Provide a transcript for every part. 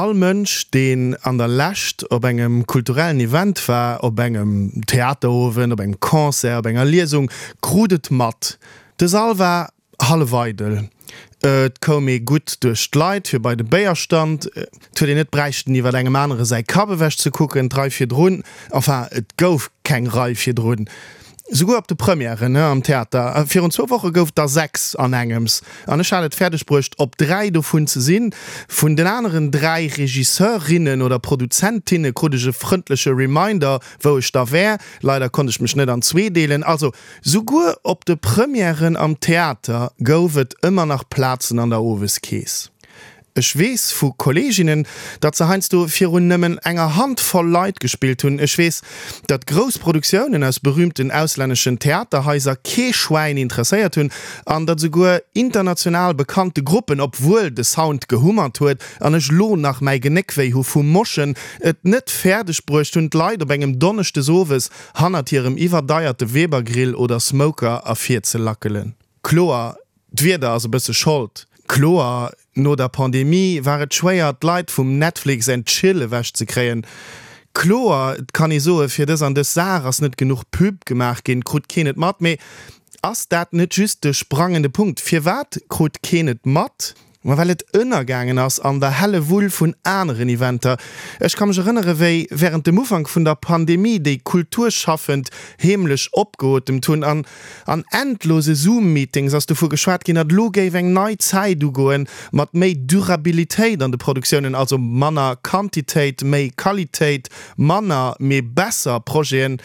All Mënsch, deen an der Lescht op engem kulturellen Event war, op engem Theaterowend, op engem Concert, op enger Liesung, krut et mat, De Sall war hallef eidel. Et koum ee gutt duerch d'Leit fir bei de Béierstand. Et huet een net bräichten iwwer engem anere säi Kapp ewech ze kucken. D'Rei virdrun, enfin et gouf keng Rei virdrun, souguer op de Premièren am Theater virun zwou Woche gouf der 6 an engems an ech hat et fäerdeg bruecht op 3 dovun ze sinn. Vun den aneren 3 Regisseurinnen oder Produzentinne krut ech e frëndleche Reminder wou ech da wär. Leider konnt ech mech net an zwee deelen. Also Souguer op de Premièren am Theater gouf et ëmmer nach Plazen an der Oweskeess. Ech weess vu Kolleeginnen, datt se heiansdo virun nëmmen enger Hand voll Leit gespillt hunn. Ech weess, datt grouss Produktiounen aus berüümten auslänneschen Theaterhaiser kee Schwäin interesséiert hunn an datt esouguer international bekannte Gruppen, obwuel de Sound gehummert huet an ech lo nach mäi Genéck wéi hu vum Moschen, et net fäerdeg bruecht hunn, d'Leit op engem Donneschdesowes hannert hirem iwwerdeierte Weber-Grill oder Smoker ervirzelackelen. Kloer, d'Wieder ass e bësse Schold. Kloer, no der Pandemie war et schwéier, d'Leit vum Netflix and Chill ewechzekréien. Kloer, et kann ee soe fir dës an dës Saach ass net genuch Pub gemaach ginn, krut keen et mat. Mee ass dat net just de sprangende Punkt? Firwat krut keen et mat? Ma well et ënnergaangen ass an der Hellewull vun aneren Eventer. Ech ka mech erënnere wéi wärend dem Ufank vun der Pandemie déi Kulturschaffend heemlech opgeotemt hunn an an endlose Zoom-Meetings ass dovu geschwat ginn, datt elo géif eng nei Zäit ugoen mat méi Durabilitéit an de Produktiounen, also manner Quantitéit, méi Qualitéit, manner, mee besser Projeten.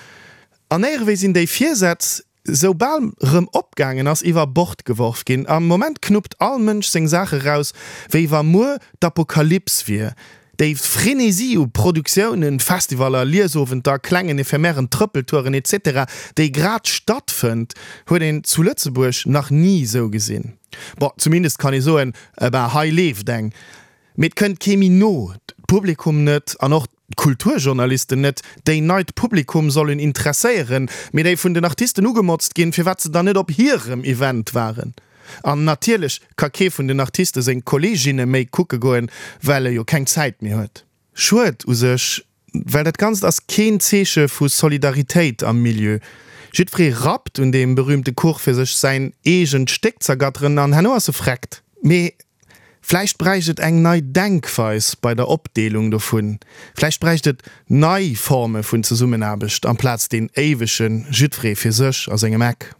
An éierewéi sinn déi Virsätz soubal rëm opgaangen ass, iwwer Bord geworf ginn. Am Moment knuppt all Mënsch seng Saache raus, wéi wa muer d'Apokalyps wier. Déi Frenesie u Produktiounen, Festivaller, Liesowenter, klengen ephemeren Trëppeltouren etc. Déi grad stattfënnt, huet een zu Lëtzebuerg nach ni sou gesinn. Bon, zumindest kann ee soen, eh ben, hei leeft eng. Mee et kënnt kee méi no, d'Publikum net an och d'Kulturjournalisten net, déi neit Publikum sollen interesséieren, mee déi vun den Artisten ugemotzt ginn, firwat se dann net op hirem Event waren. An natierlech ka kee vun den Artiste seng Kolleeginne méi kucke goen, well e jo keng Zäit méi huet. Schued u sech, well dat Ganzt ass keen Zeeche vu Solidaritéit am Milieu. Jiddweree rappt un deem berühmte Kuch fir sech säin eegent Stéck z'ergatteren an herno ass e freckt. Mee Vläicht bräicht et eng nei Denkweis bei der Opdeelung dovun. Vläicht bräicht et nei Forme vun Zesummenaarbecht amplaz deen éiwege jiddweree fir sech a sengem Eck.